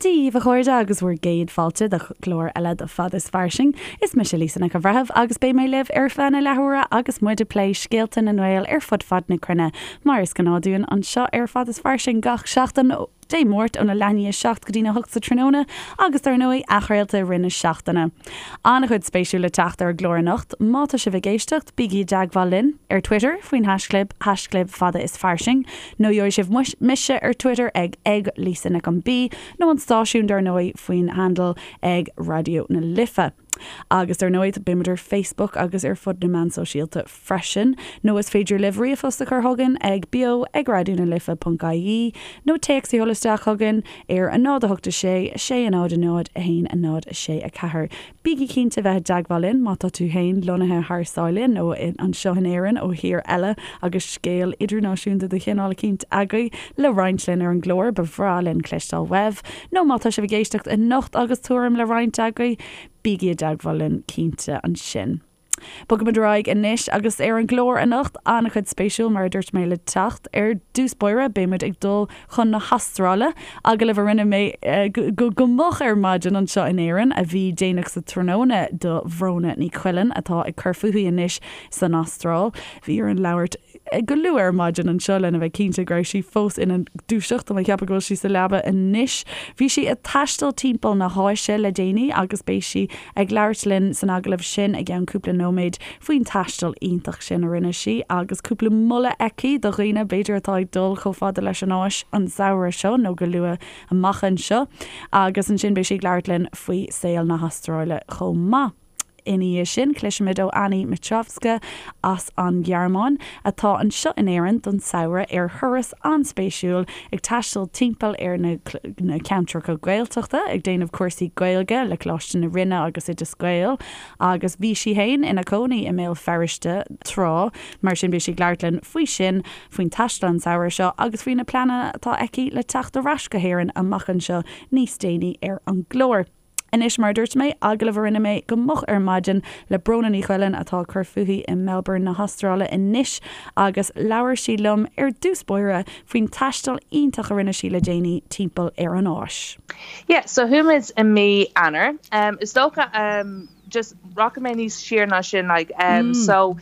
Dia daoibh a chairde agus bhur gcéad fáilte do chlár eile de Fad is Fairsing. Is mise Lisa Nic an Bhreithimh agus beidh mé libh ar feadh na leathuaire agus muid ag plé scéalta na nGael ar fud fad na cruinne mar is gnáth dúinn anseo ar Fad is Fairsing gach seachtain Dé Máirt óna leath i ndiaidh 7 go dtína 8 sa tráthnóna agus dar ndóigh athchraolta i rith na seachtaine. An-chuid spéisiúil le teacht ar an gclár anocht. Má tá sibh ag éisteacht, bígí i dteagmháil linn ar Twitter faoin haischlib, haischlib fada is fairsing, nó gheobhaidh sibh mise ar Twitter ag ag Lisa Nic an B nó an stáisiún dar ndóigh faoin handle ag Raidió na Life. Agus dar ndóigh beimid ar Facebook agus ar fud na meán sóisialta freisin. Nó is féidir libh ríomhphost a chur chugainn ag beo ag raidionalife ponc ie nó téacs a sheoladh isteach chugainn ar 0 8 6 6 0 0 1 0 6 4. Bígí cinnte bheith i dteagmháil linn má tá tú féin lonnaithe thar sáile nó anseo in Éirinn ó thír eile agus scéal idirnáisiúnta de chineál eicínt agaibh le roinnt linn ar an gclár, ba bhreá linn cloisteáil uaibh. Nó má tá sibh ag éisteacht anocht agus tuairim le roinnt agaibh, bígí i dteagmháil linn cinnte ansin. Bogaimid ar aghaidh anois agus ar an gclár anocht, an-chuid spéisiúil mar a dúirt mé le teacht. Ar dtús báire beimid ag dul chun na hAstráile, agallamh a rinne mé go moch ar maidin anseo in Éirinn, a bhí déanach sa tráthnóna do Bhróna Ní Choileáin atá ag cur fúithi anois san Astráil. Bhí orainn labhairt go luath ar maidin anseo lena bheith cinnte go raibh sí fós ina dúiseacht, tá mé ag ceapadh go bhfuil sí sa leaba anois. Bhí sí ag taisteal timpeall na hÁise le déanaí agus beidh sí ag labhairt linn san agallamh sin i gceann cúpla nóiméad faoin taisteal iontach sin a rinne sí agus cúpla moladh aici do dhaoine b'fhéidir atá ag dul chomh fada leis an Áis an samhradh seo nó go luath amach anseo. Agus ansin beidh sí ag labhairt linn faoi saol na hAstráile chomh maith. Ina dhiaidh sin, cloisfimid ó Annie Mitrovska as an Ghearmáin, atá anseo in Éirinn don samhradh ar thuras an-spéisiúil ag taisteal timpeall ar na na ceantracha Gaeltachta ag déanamh cúrsaí Gaeilge le Coláiste na Rinne agus Oideas Gael agus bhí sí fhéin ina cónaí i mBéal Feirste tráth, mar sin beidh sí ag labhairt linn faoi sin, faoin taisteal an samhradh seo agus faoi na pleananna atá aici le teacht ar ais go hÉirinn amach anseo níos déanaí ar an gclár. Anois, mar a dúirt mé, agallamh a rinne mé go moch ar maidin le Bróna Ní Choileáin atá ag cur fúithi i Melbourne na hAstráile anois agus labhair sí liom ar dtús báire faoin taisteal iontach a rinne sí le déanaí timpeall ar an Áis. Yeah, so chuaigh muid i mí Eanáir. Is dócha, just rachaidh mé níos siar ná sin, like, so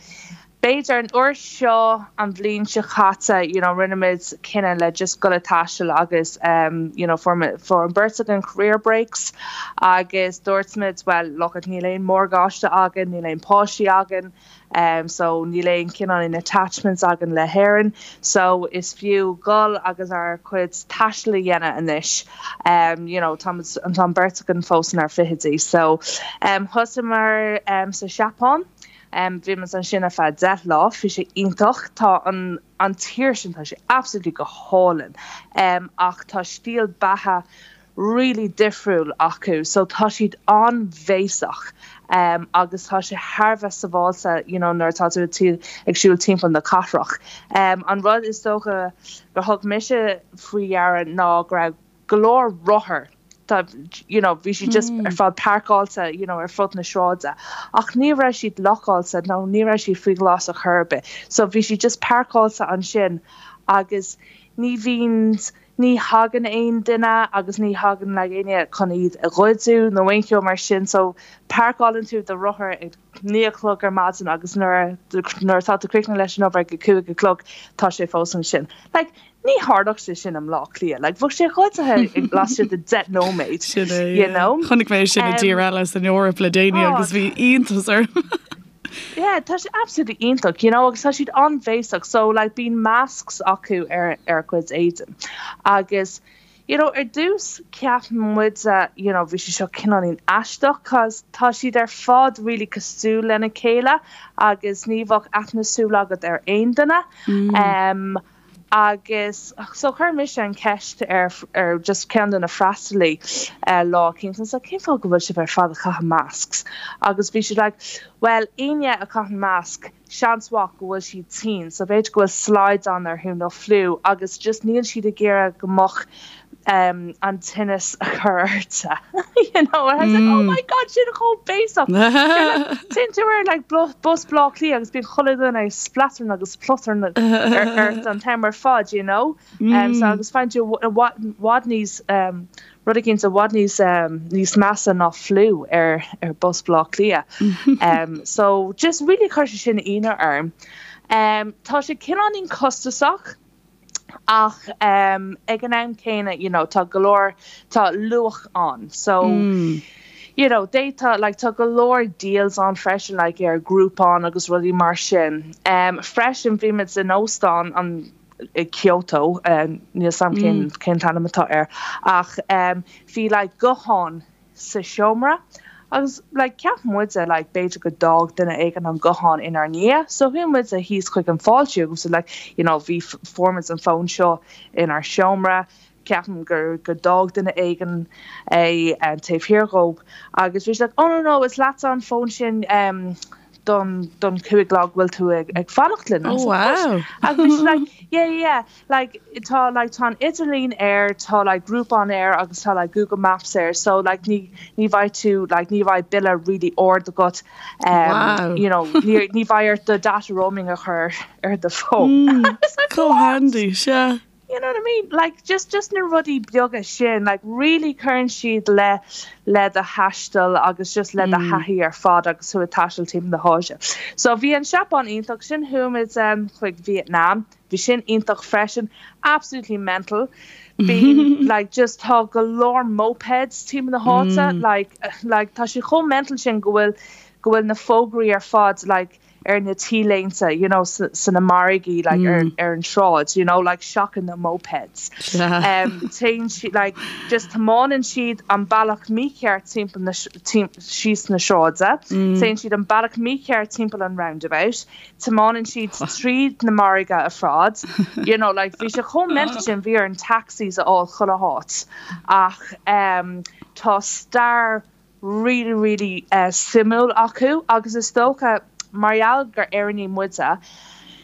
B'fhéidir an uair seo an bhliain seo caite you know rinne muid cinneadh le just dul ag taisteal agus you know fuair fuair an beirt againn career breaks agus dúirt muid well look it níl aon morgáiste againn, níl aon páistí againn um so níl aon cineál aon attachments againn le hÉirinn so is fiú dul agus ár cuid taistil a dhéanamh anois um you know tá muid tá an beirt againn fós inár fichidí so um thosaíomar um sa Seapáin Bhí muid ansin ar feadh 10 lá, bhí sé iontach. Tá an an tír sin, tá sé absolutely go hálainn. Ach tá stíl beatha really difriúil acu so tá siad an-bhéasach agus tá sé thar a bheith sábháilte you know nuair atá tú ag siúl timpeall na cathrach. An rud is dócha gur thug mise faoi deara ná go raibh go leor rothar tá you know bhí siad just ar fad páirceáilte you know ar fud na sráide ach ní raibh siad lockáilte nó ní raibh siad faoi ghlas ar chor ar bith so bhí siad just páirceáilte ansin agus ní bhíonn ní thagann aon duine agus ní thagann like éinne chun iad a ghoideadh nó aon cheo mar sin so páirceálann tú do rothar ag 9 a chlog ar maidin agus nuair nuair atá tú críochnaithe leis an obair ag a 5 a chlog tá sé fós ansin like Ní tharlódh sé sin i mBleá Cliath. Like, bheadh sé goidte laistigh de 10 nóiméad. Sin é, you know? Chonaic mé sin i dtír eile san Eoraip le déanaí oh, agus bhí iontas orm. Yeah, tá sé absolutely iontach, you know, agus tá siad an-bhéasach, so like bíonn masks acu ar ar a gcuid éadain. Agus you know, ar dtús cheap muid you know, bhí sé seo cineáilín aisteach cos tá siad ar fad really cosúil lena chéile agus ní bheadh aithne súl agat ar aon duine. Mm. Um, Agus so chuir mise an cheist ar ar just ceann de na freastalaí lá eicínt and I was like cén fáth go bhfuil sibh ar fad ag caitheamh masks? Agus bhí siad like bhuel éinne a chaitheann masc seans mhaith go bhfuil siad tinn so b'fhéidir go bhfuil slaghdán orthu nó fliú agus just níl siad ag iarraidh go mbeadh. um, an tinneas a chur ortsa you know and I was like oh my god sin chomh béasach Téann tú ar like bus Baile Átha Cliath agus bíonn chuile dhuine ag spleatarn agus plotarn ort an t-am ar fad you know um, so agus faigheann tú i bhfad níos um, rud éicint i bhfad níos um, níos measa ná fliú ar ar bus Baile Átha Cliath um, so just really chuir sé sin ionadh orm um, tá sé cineáilín costasach Ach ag an am céanna, you know, tá go leor, tá luach ann. So, you know, d'fhéadfá, like, tá go leor deals ann freisin, like, ar Groupon agus rudaí mar sin. Freisin, bhí muid in óstán an, i Kyoto, níl 'fhios a'm cén, cén t-ainm atá air, ach bhí, like, guthán sa seomra agus like cheap muide like b'fhéidir go d'fhág duine éigin an guthán inár ndiaidh so chuaigh muide thíos chuig an fáiltiú agus like you know bhí fuair muid an fón seo inár seomra ceapaim gur go d'fhág duine éigin é taobh thiar dhóibh agus bhí siad like oh no no is leatsa an fón sin um don don chúig lá go bhfuil tú ag ag fanacht linn. Oh wow. Agus bhí siad like yeah yeah like tá like tá an idirlíon air, tá like Groupon air agus tá like Google Maps air so like ní ní bheidh tú like ní bheidh bille really ard agat um Wow. you know ní ní bheidh ort do data roaming a chur ar do phone. Mm, chomh handy, sea. You know what I mean? Like just just na rudaí beaga sin like really cuireann siad le le do thaisteal agus just le do thaithí ar fad agus tú ag taisteal timpeall na hÁise. So bhí an Seapáin iontach, ansin chuaigh muid um chuig Vietnam. Bhí sin iontach freisin. Absolutely mental. Bíonn like just tá go leor mopeds timpeall na háite like like tá sé chomh mental sin go bhfuil go bhfuil na fógraí ar fad like ar na T-léinte you know sna margaí like ar ar an sráid you know like seachain na mopeds. Um téann siad like just tiomáineann siad an bealach mícheart timpeall na síos na sráide, téann siad an bealach mícheart timpeall an roundabout, tiomáineann siad tríd na margaí ar fad, you know, like bhí sé chomh mental sin, bhí orainn taxis a fháil chuile háit ach ehm tá stair really really eh suimiúil acu agus is dócha mar gheall gur Éireannaigh muide,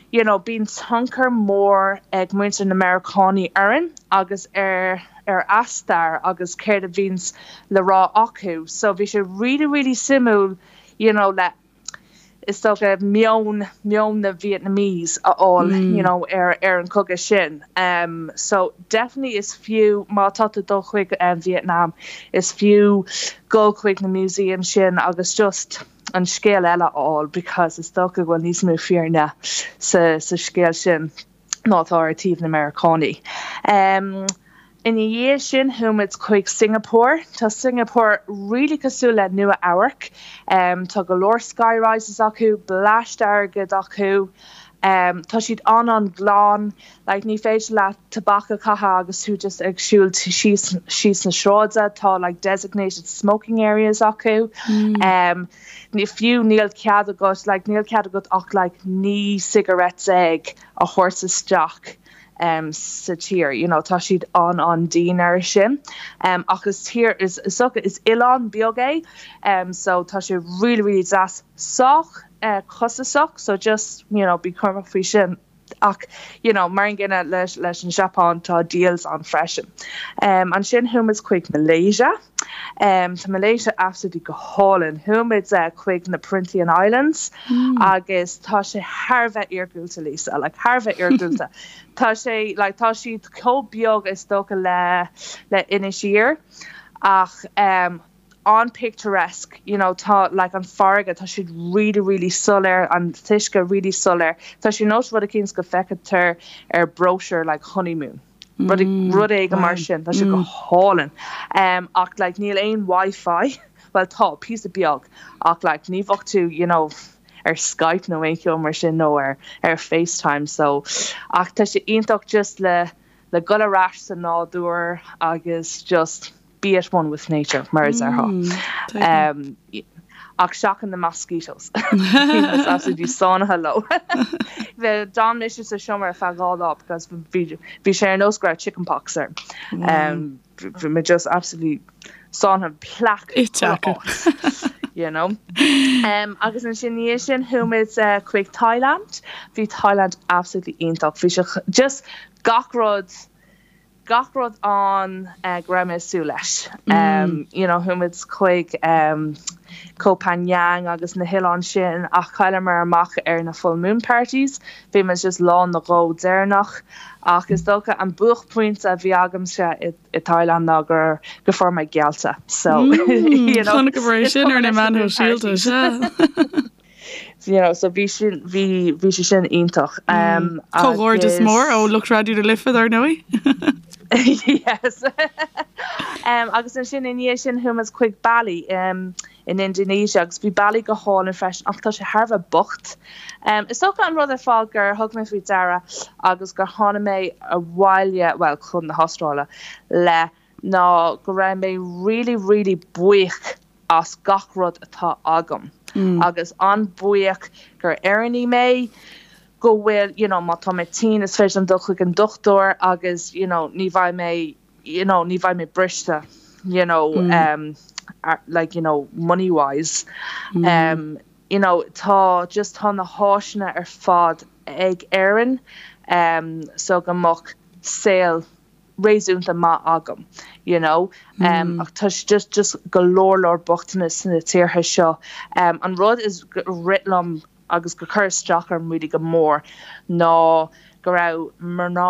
you know, bíonn tionchar mór ag muintir na Meiriceánaigh orainn agus ar ar a stair agus céard a bhíonns le rá acu so bhí sé really really suimiúil, you know, le is dócha, meon, meon na Vietnamese a fháil, you know, ar, ar an chogadh sin. So, definitely is fiú, má tá tú ag dul chuig Vietnam, is fiú dul chuig na museums sin agus just an scéal eile a fháil because is dócha go bhfuil níos mó fírinne sa, sa scéal sin. ná atá ar taobh na Meiriceánaigh. Ina dhiaidh sin chuaigh muid chuig Singapore. Tá Singapore really cosúil le Nua Eabharc. Tá go leor sky rises acu, bleaist airgid acu. Tá siad an-an-ghlan. Like ní féidir leat tobac a chaitheamh agus tú just ag siúl síos síos na sráide. Tá like designated smoking areas acu. Ní fiú níl cead agat like níl cead agat ach like 19 cigarette a thabhairt isteach um sa tír you know tá siad an-an-dian air sin um ach is tír is is dócha is oileán beag é um so tá sé really really deas sách eh costasach so just you know bí cúramach faoi sin. Ach, you know, mar an gcéanna leis leis an Seapáin, tá deals ann freisin. Ansin chuaigh muid chuig Malaysia. Tá Malaysia absolutely go hálainn. Chuaigh muid chuig na Perhentian Islands agus tá sé thar a bheith iargúlta, Lisa, like thar a bheith iargúlta. Tá sé, like, tá siad chomh beag is dócha le le Inis Oírr ach an-picturesque, you know, tá like an farraige, tá siad really really soiléir, an t-uisce really soiléir. Tá sé nós rud eicínt go bhfeictear ar brochure like honeymoon, rud rud éigin mar sin, tá sé go hálainn. Um, ach like níl aon Wi-Fi, well tá, píosa beag, ach like ní bheadh tú, you know, ar Skype nó aon cheo mar sin nó ar ar FaceTime so ach tá sé iontach just le le dul ar ais sa nádúr agus just be at one with nature, mar a déarfá. Ach seachain na mosquitoes. Bhí muid absolutely sáinnithe leo. D'fhan mise sa seomra ar feadh 2 lá because bhí sé ar nós go raibh chicken pox orm. Bhí mé just absolutely sáinnithe plaic ite acu. You know. Agus ansin ina dhiaidh sin chuaigh muid chuig Thailand. Bhí Thailand absolutely iontach. Bhí sé just gach rud. gach rud ann go raibh mé ag súil leis. You know, chuaigh muid chuig Koh Phangan agus na hoileáin sin ach chailleamar amach ar na full moon parties. Bhí muid just lá nó dhó deireanach ach is dócha an buaicphointe a bhí agamsa i i Thailand ná gur go fuair mé geallta. So, you know, Chonaiceamar é sin ar na meáin shóisialta, sea. you know, so bhí sin, bhí, bhí sé sin iontach. Um, Comhghairdeas mór ó lucht Raidió na Life, dar ndóigh. Yes. um, agus ansin i ndiaidh sin chuaigh muid chuig Bali um, in Indonesia agus bhí Bali go hálainn freisin ach tá sé thar a bheith bocht. Um, is dócha an rud ar fad gur thug mé faoi deara agus gur tháinig mé abhaile, well, chun na hAstráile le ná go raibh mé really really buíoch as gach rud atá agam agus an-bhuíoch gur Éireannaí mé, go bhfuil, you know, má tá mé tinn is féidir liom dul chuig an dochtúir agus, you know, ní bheidh mé, you know, ní bheidh mé briste, you know, um, like, you know, money wise. Um, you know, tá, just tá na háiseanna ar fad ag Éirinn, um, so go mbeadh saol réasúnta maith agam you know ach tá just just go leor leor bochtanas sna tíortha seo. An rud is rith liom agus gur chuir isteach orm really go mór ná go raibh mná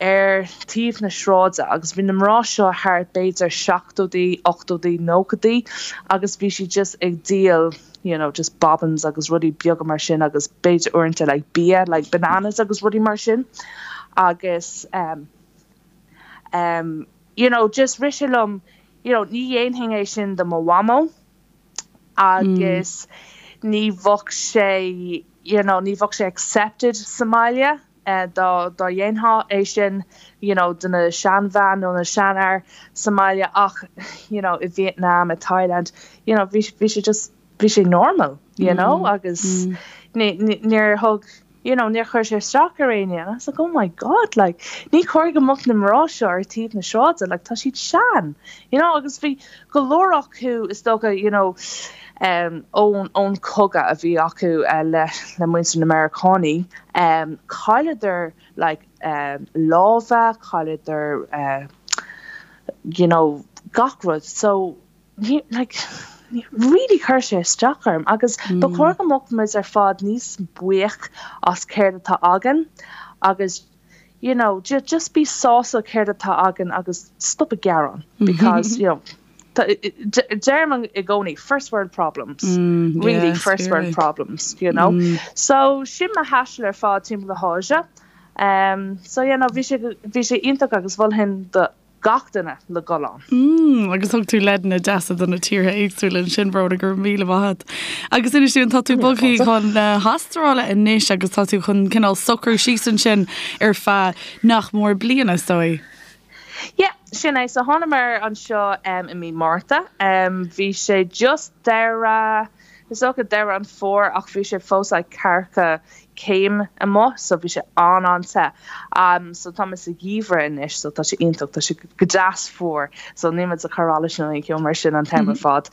ar taobh na sráide agus bhí na mná seo thart b'fhéidir seachtóidí, ochtóidí, nóchaidí agus bhí siad just ag díol you know just bobbins agus rudaí beaga mar sin agus b'fhéidir uaireanta like bia like bananas agus rudaí mar sin agus um um you know just rith sé liom you know ní dhéanfainn é sin do mo mhamó agus ní bheadh sé you know ní bheadh sé accepted sa mbaile. dá dhéanfá é sin you know do na seanbhean nó na seanfhear sa mbaile ach you know i Vietnam, i Thailand, you know bhí bhí sé just bhí sé normal you know agus ní ní níor thug you know níor chuir sé isteach ar éinne and I was like oh my god like ní chóir go mbeadh na mná seo ar taobh na sráide like tá siad sean you know agus bhí go leor acu is dócha you know um ón ón cogadh a bhí acu le le muintir na Meiriceánaí Chailleadar like lámha, chailleadar you know gach rud so like really chuir sé isteach orm agus ba chóir go mbeadh muid ar fad níos buíoch as céard atá againn agus you know just bí sásta céard atá againn agus stop ag gearán because you know Deirim i gcónaí first world problems, really first world problems, you know. So sin mo thaisteal ar fad timpeall na hÁise. So yeah, no, bhí sé, bhí sé iontach agus mholfainn do gach duine le dhul ann. Mm, agus thug tú leideanna deasa do na tíortha éagsúla ansin, Bróna, go raibh míle maith agat. Agus inis dúinn, tá tú bogtha chun na hAstráile anois agus tá tú chun cineál socrú síos ansin ar feadh nach mór bliana, is dóigh. Yeah, sin é. So thánamar anseo i mí Márta. Bhí sé just deireadh, is dócha deireadh an fómhair ach bhí sé fós like ceathracha céim amuigh so bhí sé an-an-te. So tá mé sa gheimhreadh anois so tá sé iontach, tá sé go deas fuar so níl muid ag cur allais nó aon cheo mar sin an t-am ar fad.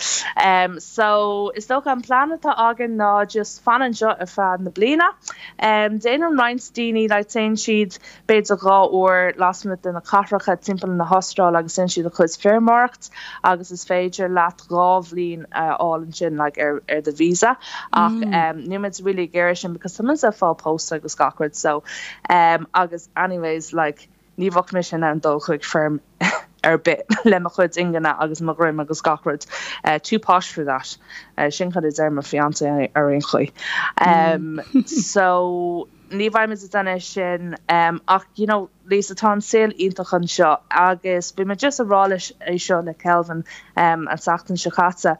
So is dócha an plean atá againn ná just fan anseo ar feadh na bliana. Déanann roinnt daoine like téann siad b'fhéidir 2 uair lasmuigh de na cathracha timpeall na hAstráile agus déanann siad a chuid feirmeoireacht agus is féidir leat 2 bhliain a fháil ansin like ar ar do visa ach níl muid really ag iarraidh sin because tá muid ag fáil pósta agus gach rud so agus anyways like ní bheadh mise in ann dul chuig feirm ar bith le mo chuid ingne agus mo dhroim agus gach rud too posh for that sin cad a deir mo fiancé ar aon chaoi so Ní bheidh muid ag déanamh sin ach you know Lisa tá an saol iontach anseo agus bhí mé just ag rá leis é seo le Kelvin an tseachtain seo caite.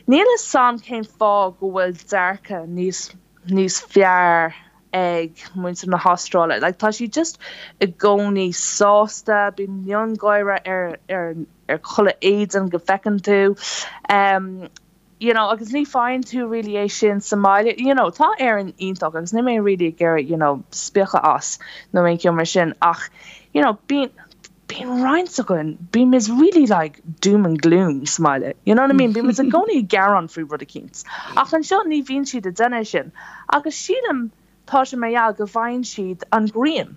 Níl fhios a'm cén fáth go bhfuil dearcadh níos níos fearr ag muintir na hAstráile. Like tá siad just i gcónaí sásta, bíonn miongháire ar ar ar chuile éadan go bhfeiceann tú. You know agus ní faigheann tú really é sin sa mbaile, you know tá Éirinn iontach agus níl mé really ag iarraidh you know spiacadh as nó aon cheo mar sin ach you know bíonn bíonn roinnt againn, bímid really like doom and gloom sa mbaile, you know what I mean, bímid i gcónaí ag gearán faoi rud eicínt ach anseo ní bhíonn siad ag déanamh sin agus sílim. Tá sé mar gheall go bhfaigheann siad an ghrian.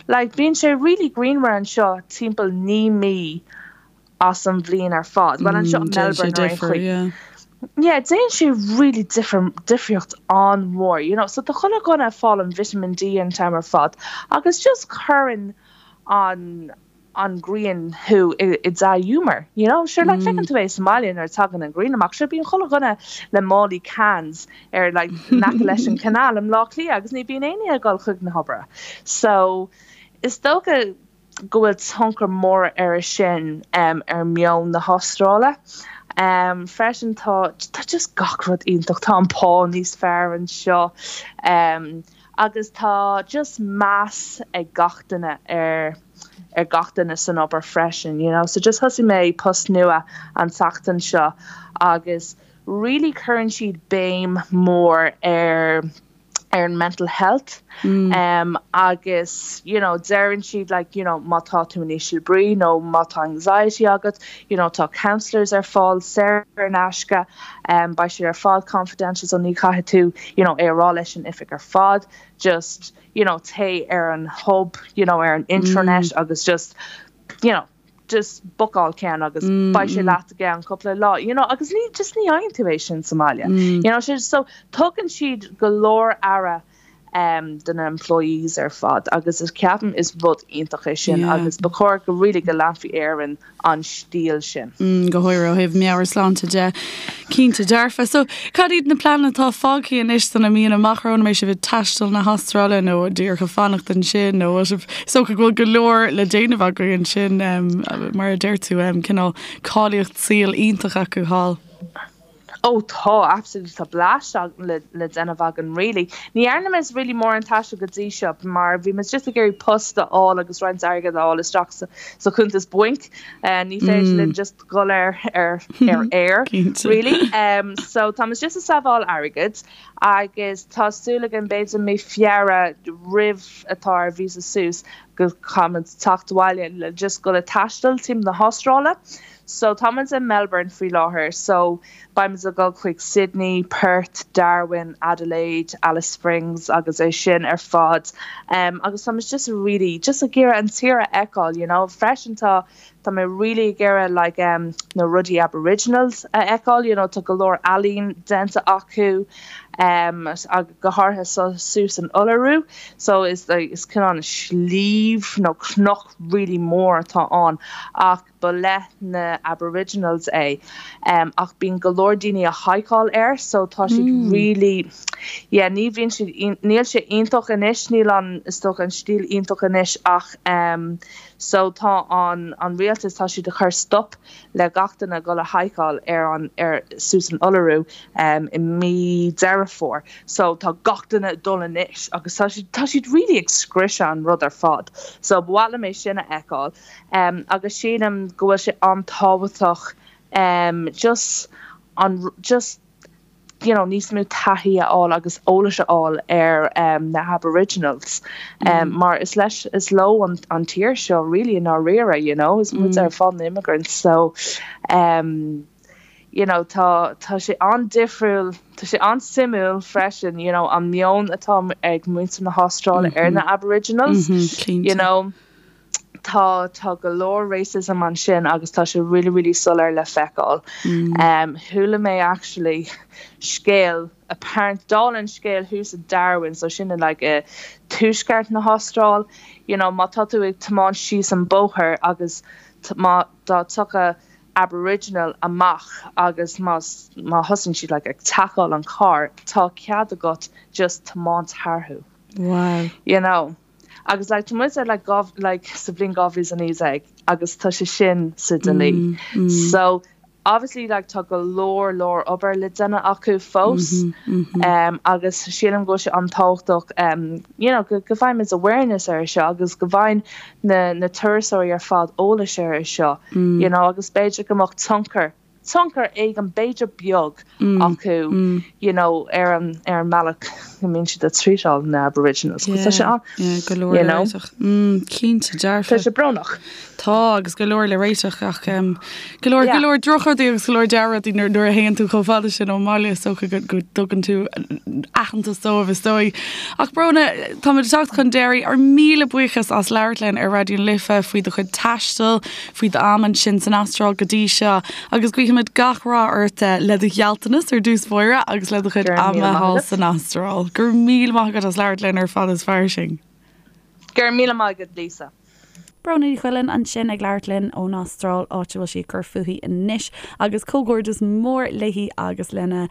Like, bíonn sé really grianmhar anseo timpeall 9 mí as an bhliain ar fad. Bhuel, anseo i Déanann sé Melbourne ar aon difear, chaoi. yeah. Yeah, déanann sé really difear, difríocht an-mhór, you know. So tá chuile dhuine ag fáil an vitamin D an t-am ar fad agus just cuireann an an ghrian thú i dea-ghiúmar, you know. Sure, like, feiceann tú é sa mbaile nuair a tagann an ghrian amach, sure, bíonn chuile dhuine le málaí cans ar, like, in aice leis an canal i mBleá Cliath agus ní bhíonn éinne ag dul chuig na hoibre. So, is dócha go bhfuil tionchar mór air sin ar meon na hAstráile. Freisin tá, tá just gach rud iontach, tá an pá níos fearr anseo agus tá just meas ag gach duine ar ar gach duine san obair freisin, you know. So just thosaigh mé post nua an tseachtain seo agus really cuireann siad béim mór ar ar an mental health um, agus you know deireann siad like you know má tá tú in ísle brí nó má tá anxiety agat you know tá counsellors ar fáil saor in aisce um, beidh siad ar fad confidential so ní chaithfidh tú you know é a rá leis an oifig ar fad just you know téigh ar an hub you know ar an intranet agus just you know just bookáil ceann agus beidh sé leat i gceann cúpla lá you know agus ní just ní fhaigheann tú é sin sa mbaile you know so tugann siad go leor aire um, do na employees ar fad agus is ceapaim is rud iontach é sin Yeah. agus ba chóir go really go leanfaí ar an an stíl sin. Mm, go háirithe ó thaobh meabhairshláinte de. Cinnte dearfa. So, cad iad na pleananna atá fágtha anois do na míonna amach romhainn? An mbeidh sibh ag taisteal na hAstráile nó díreach ag fanacht ansin nó bhfuil sibh, is dócha go bhfuil go leor le déanamh agaibh ansin, um, mar a deir tú, um, cineál cáilíocht saoil iontach acu thall. Oh tá, absolutely, tá blast le le déanamh againn really. Ní dhearna muid really mórán taistil go dtí seo mar bhí muid just ag iarraidh post a fháil agus roinnt airgead a fháil isteach sa sa chuntas bainc. Ní féidir linn just dhul ar ar ar aer really. So tá muid just ag sábháil airgid agus tá súil againn b'fhéidir mí Feabhra roimh atá ár visa suas go caithfimid teacht abhaile le just dhul ag taisteal timpeall na hAstráile. So tá muid i Melbourne faoi láthair so beidh muid ag dul chuig Sydney, Perth, Darwin, Adelaide, Alice Springs agus é sin ar fad um agus tá muid just really just ag iarraidh an tír a fheiceáil you know. Freisin tá tá mé really ag iarraidh like um na rudaí Aboriginals a fheiceáil you know tá go leor ealaín déanta acu um agus go háirithe so suas in Uluru so is like is cineál sliabh nó cnoc really mór atá ann ach Ba le na Aboriginals é ach bíonn go leor daoine a haiceáil air so tá siad really yeah ní bhíonn siad níl sé iontach anois níl an is dócha an stíl iontach anois ach so tá an an rialtas tá siad a chur stop le gach duine dul a haiceáil ar an ar suas in Uluru i mí Deireadh Fómhair so tá gach duine ag dul anois agus tá siad tá siad really ag scriosadh an rud ar fad so ba mhaith liom é sin a fheiceáil. Agus sílim go bhfuil sé an-tábhachtach just an just you know níos mó taithí a fháil agus eolais a fháil ar na Aboriginals mar is leis is leo an an tír seo really i ndáiríre you know is muid ar fad na immigrants so you know tá tá sé an-difriúil tá sé an-suimiúil freisin you know an meon atá ag muintir na hAstráile ar na Aboriginals you know. Tá, tá go leor racism ansin agus tá sé really, really soiléir le feiceáil. Chuala mé actually scéal, apparent, dála an scéil thuas i Darwin, so sin in like i tuaisceart na hAstráil, you know, má tá tú ag tiomáint síos an bóthar agus má, dá dtiocfadh Aboriginal amach agus má, má thosaíonn siad like ag tacáil an carr, tá cead agat just tiomáint tharthu. Wow. You know. Agus like tá muid ar like like sa bhliain 2019 agus tá sé sin sa dlí. So obviously like tá go leor leor obair le déanamh acu fós um agus sílim go bhfuil sé an-tábhachtach um you know go go bhfaighimid awareness ar seo agus go bhfaigheann na na turasóirí ar fad eolais ar seo you know agus b'fhéidir go mbeadh tionchar. tionchar éigin b'fhéidir beag acu you know ar an ar an mbealach go mbíonn siad ag treatáil na Aboriginals 'cause tá sé an Yeah, go leor you le know. réiteach. Mm, cinnte, dearfa. Tá sé brónach. Tá, agus go leor le réiteach ach um, go leor, go Yeah. leor drochrudaí agus go leor dea-rudaí nuair, nuair a théann tú chomh fada sin ón mbaile is dócha go, go dtugann tú aitheantas dóibh is dóigh. Ach Bróna, táimid ag teacht chun deiridh, ár míle buíochas as labhairt linn ar Raidió na Life faoi do chuid taistil, faoi d'am ansin san Astráil go dtí seo agus guímid gach rath ort le do ghealltanas ar dtús báire agus le do chuid ama thall san Astráil. Go raibh míle maith agat as labhairt linn ar Fada is Fairsing. Go raibh míle maith agat Lisa. Bróna Ní Choileáin ansin ag labhairt linn ón Astráil, áit a bhfuil sí ag cur fúithi anois agus comhghairdeas mór léi agus lena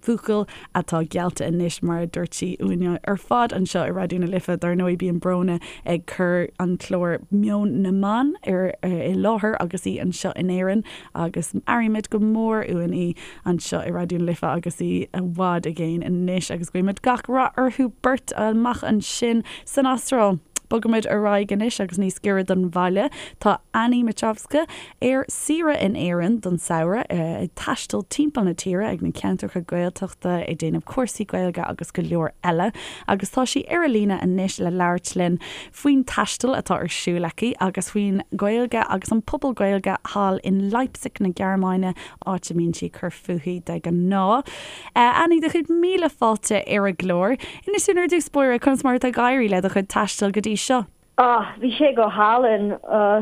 buachaill atá geallta anois, mar a dúirt sí uainne ar fad anseo i Raidió na Life. Dar ndóigh, bíonn Bróna ag cur an clár Meon na mBan ar i láthair agus í anseo in Éirinn agus airímid go mór uainn í anseo i Raidió na Life agus í i bhfad i gcéin anois agus guímid gach rath orthu beirt amach ansin san Astráil. Bogaimid ar aghaidh anois agus níos giorra don bhaile. Tá Annie Mitrovska ar saoire in Éirinn don samhradh, ag taisteal timpeall na tíre ag na ceantracha Gaeltachta, ag déanamh cúrsaí Gaeilge agus go leor eile. Agus tá sí ar an líne anois le labhairt linn faoin taisteal atá ar siúl aici agus faoin Ghaeilge agus an pobal Gaeilge thall in Leipzig na Gearmáine, áit a mbíonn sí ag cur fúithi de ghnáth. Annie, do chéad míle fáilte ar an gclár. Inis dúinn ar dtús báire conas mar atá ag éirí le do chuid taistil go dtí seo. Oh, bhí sé go hálainn.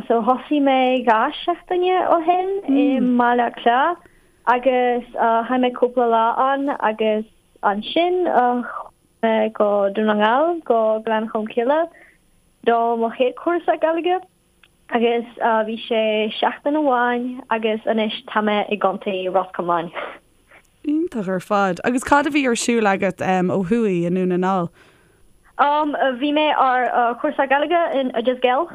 So thosaigh mé 2 seachtaine ó shin i mBaile Átha Cliath agus chaith mé cúpla lá ann agus ansin chuaigh mé go Dún na nGall, go Gleann Cholm Cille do mo chéad chúrsa Gaeilge agus bhí sé seachtain amháin agus anois tá mé i gContae Ros Comáin. Iontach ar fad. Agus cad a bhí ar siúl agat ó thuaidh i nDún na nGall? Bhí mé ar chúrsa Gaeilge in Oideas Gael.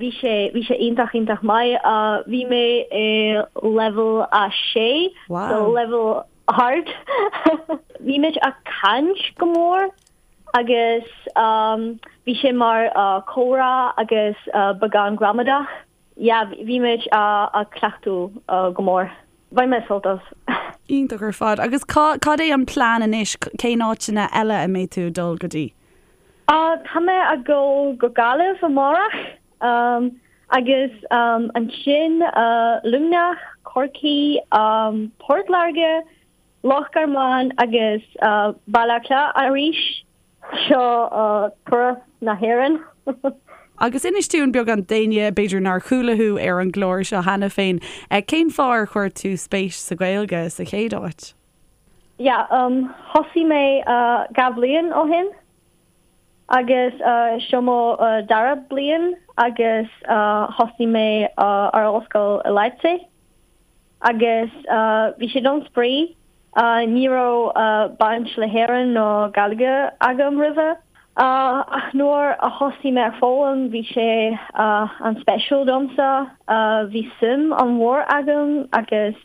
Bhí sé, bhí sé iontach, iontach maith. Bhí mé i leibhéal a sé, so leibhéal ard. Bhí muid ag caint go mór agus bhí sé mar comhrá agus beagán gramadach. Yeah, bhí muid ag cleachtadh go mór. Bhain mé sult as. Iontach ar fad. Agus cad é an plean anois, cén áiteanna eile a mbeidh tú ag dul go dtí? Tá mé ag dul go Gaillimh amárach agus ansin Luimneach, Corcaigh, Port Láirge, Loch Garman agus Baile Átha Cliath arís. Seo turas na hÉireann. Agus inis dúinn beagán d'éinne b'fhéidir nár chuala thú ar an gclár seo cheana féin, cén fáth ar chuir tú spéis sa Ghaeilge sa chéad áit? Yeah, thosaigh mé 2 bhliain ó shin agus seo mo dara bliain agus thosaigh mé ar ollscoil i Leipzig. Agus bhí sé don spraoi. Ní raibh baint le hÉirinn nó Gaeilge agam roimhe. Ach nuair a thosaigh mé ag foghlaim bhí sé an-speisiúil domsa. Bhí suim an-mhór agam agus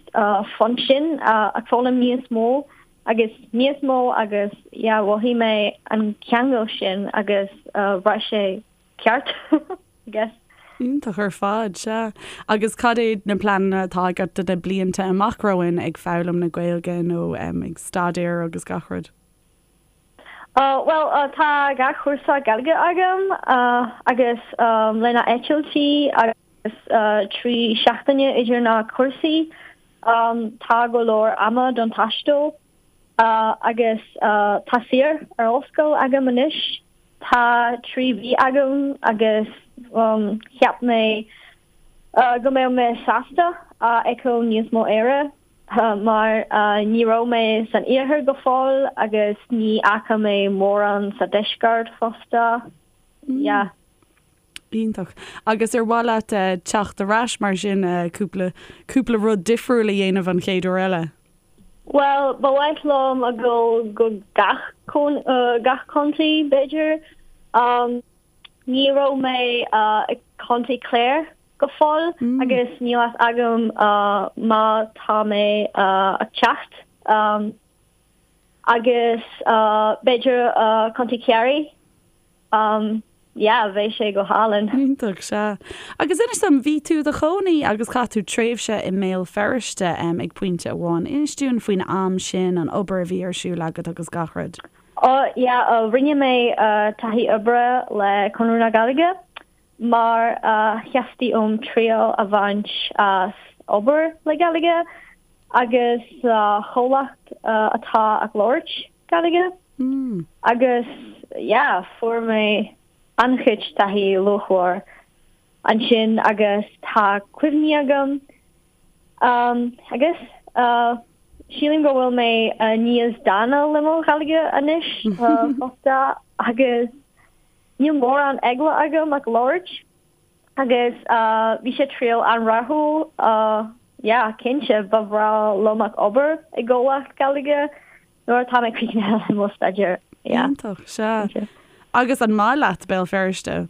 fan sin ag foghlaim níos mó agus níos mó agus yeah mhothaigh mé an ceangal sin agus bhraith sé ceart, I guess. Iontach ar fad, sea. Agus cad é na pleananna atá agat do na blianta amach romhainn ag foghlaim na Gaeilge nó ag staidéar agus gach rud? Bhuel, tá 2 chúrsa Gaeilge agam agus le na eitiltí agus 3 seachtaine idir na cúrsaí, tá go leor ama don taisteal. Agus tá saoire ar ollscoil agam anois. Tá 3 mhí agam agus cheap mé go mbeadh mé sásta a fheiceáil níos mó Éire mar ní raibh mé san iarthar go fóill agus ní fhaca mé mórán sa deisceart fosta. Yeah. Iontach. Agus ar mhaith leat teacht ar ais mar sin cúpla cúpla rud difriúil a dhéanamh an chéad uair eile? Bhuel, ba mhaith liom a dhul go gach gach contae, b'fhéidir. Ní raibh mé i Contae Clare go fóill agus níl fhios agam má tá mé ag teacht. Agus b'fhéidir Contae Chiarraí. Yeah, bheadh sé go hálainn. Iontach, sea. Agus inis dom, bhí tú i do chónaí agus chaith tú tréimhse i mBéal Feirste ag pointe amháin. Inis dúinn faoin am sin, an obair a bhí ar siúl agat agus gach rud. Oh, yeah, rinne mé taithí oibre le Conradh na Gaeilge mar theastaigh uaim triail a bhaint as obair le Gaeilge agus sa chomhlacht atá ag labhairt Gaeilge. Agus yeah, fuair mé an-chuid taithí luachmhar ansin agus tá cuimhní agam agus sílim go bhfuil mé níos dána le mo Ghaeilge anois fosta agus níl mórán eagla agam ag labhairt. Agus bhí sé triail an-rathúil, yeah, cinnte, ba bhreá liom ag obair i gcomhlacht Gaeilge nuair atá mé críochnaithe le mo staidéar, yeah. Iontach, sea. Agus an maith leat Béal Feirste?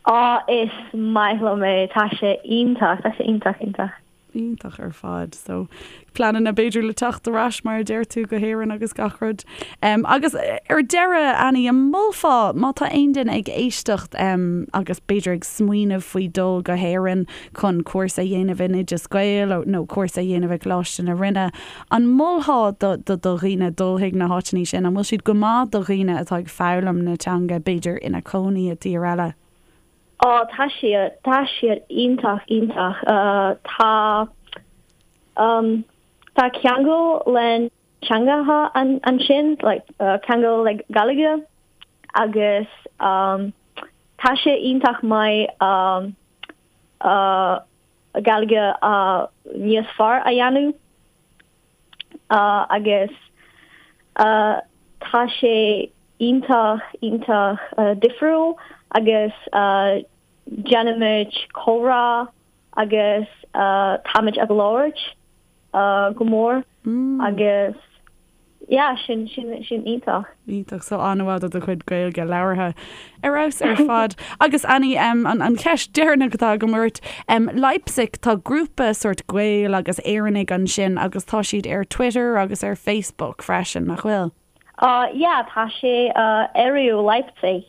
Á, is maith liom é, tá sé iontach, tá sé iontach, iontach. Iontach ar fad. So, pleananna b'fhéidir le teacht ar ais mar a deir tú go hÉirinn agus gach rud. Agus ar deireadh, Annie, an molfá má tá aon duine ag éisteacht agus b'fhéidir ag smaoineamh faoi dul go hÉirinn chun cúrsa a dhéanamh in Oideas Gael nó cúrsa a dhéanamh i gColáiste na Rinne, an molfá do do dhaoine dul chuig na háiteanna sin? An bhfuil siad go maith do dhaoine atá ag foghlaim na teanga b'fhéidir ina cónaí i dtír eile? Á, tá siad, tá siad iontach, iontach. Tá, tá ceangal le teangacha ansin, like, ceangal le Gaeilge agus tá sé iontach maith Gaeilge níos fearr a dhéanamh agus tá sé iontach, iontach difriúil agus déanaimid comhrá agus táimid ag labhairt go mór agus yeah, sin, sin, sin iontach. Iontach, so an-mhaith do do chuid Gaeilge labhartha. Ar fheabhas ar fad. Agus Annie, an, an cheist deireanach atá agam ort, Leipzig, tá grúpa sórt Gael agus Éireannaigh ansin agus tá siad ar Twitter agus ar Facebook freisin, nach bhfuil? Uh, yeah, tá sé uh, ERIU Leipzig.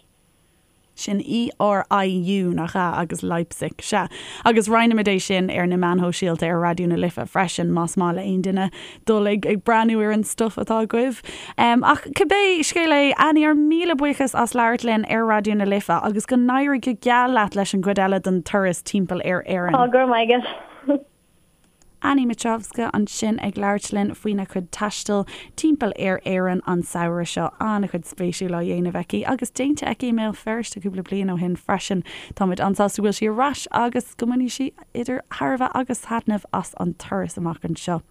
Sin ERIU, nach ea? Agus Leipzig, sea. Agus roinnfimid é sin ar na meáin shóisialta ar Raidió na Life freisin, más maith le aon duine dul ag ag breathnú ar an stuif atá agaibh. Ach cibé scéal é, Annie, ár míle buíochas as labhairt linn ar Raidió na Life agus go n-éirí go geal leat leis an gcuid eile den turas timpeall ar Éirinn. Go raibh maith agat. Annie Mitrovska ansin ag labhairt linn faoina cuid taistil timpeall ar Éirinn an samhradh seo. An-chuid spéisiúil á dhéanamh aici agus déanta aici i mBéal Feirste cúpla bliain ó shin freisin. Táimid an-sásta go bhfuil sí ar ais agus go mbainfidh sí idir thairbhe agus thaitneamh as an turas amach anseo.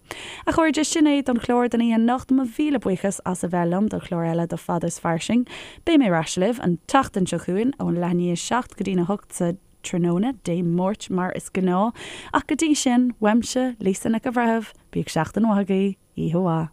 A chairde, sin é don chlár don oíche anocht. Mo mhíle buíochas as a bheith liom do chlár eile de Fada is Fairsing. Beidh mé ar ais libh an tseachtain seo chugainn ón leath i ndiaidh a 7 go dtí'n 8 sa tráthnóna Dé Máirt mar is gnáth. Ach go dtí sin, uaimse, Lisa Nic an Bhreithimh, bíodh seachtain mhaith agaibh, oíche mhaith.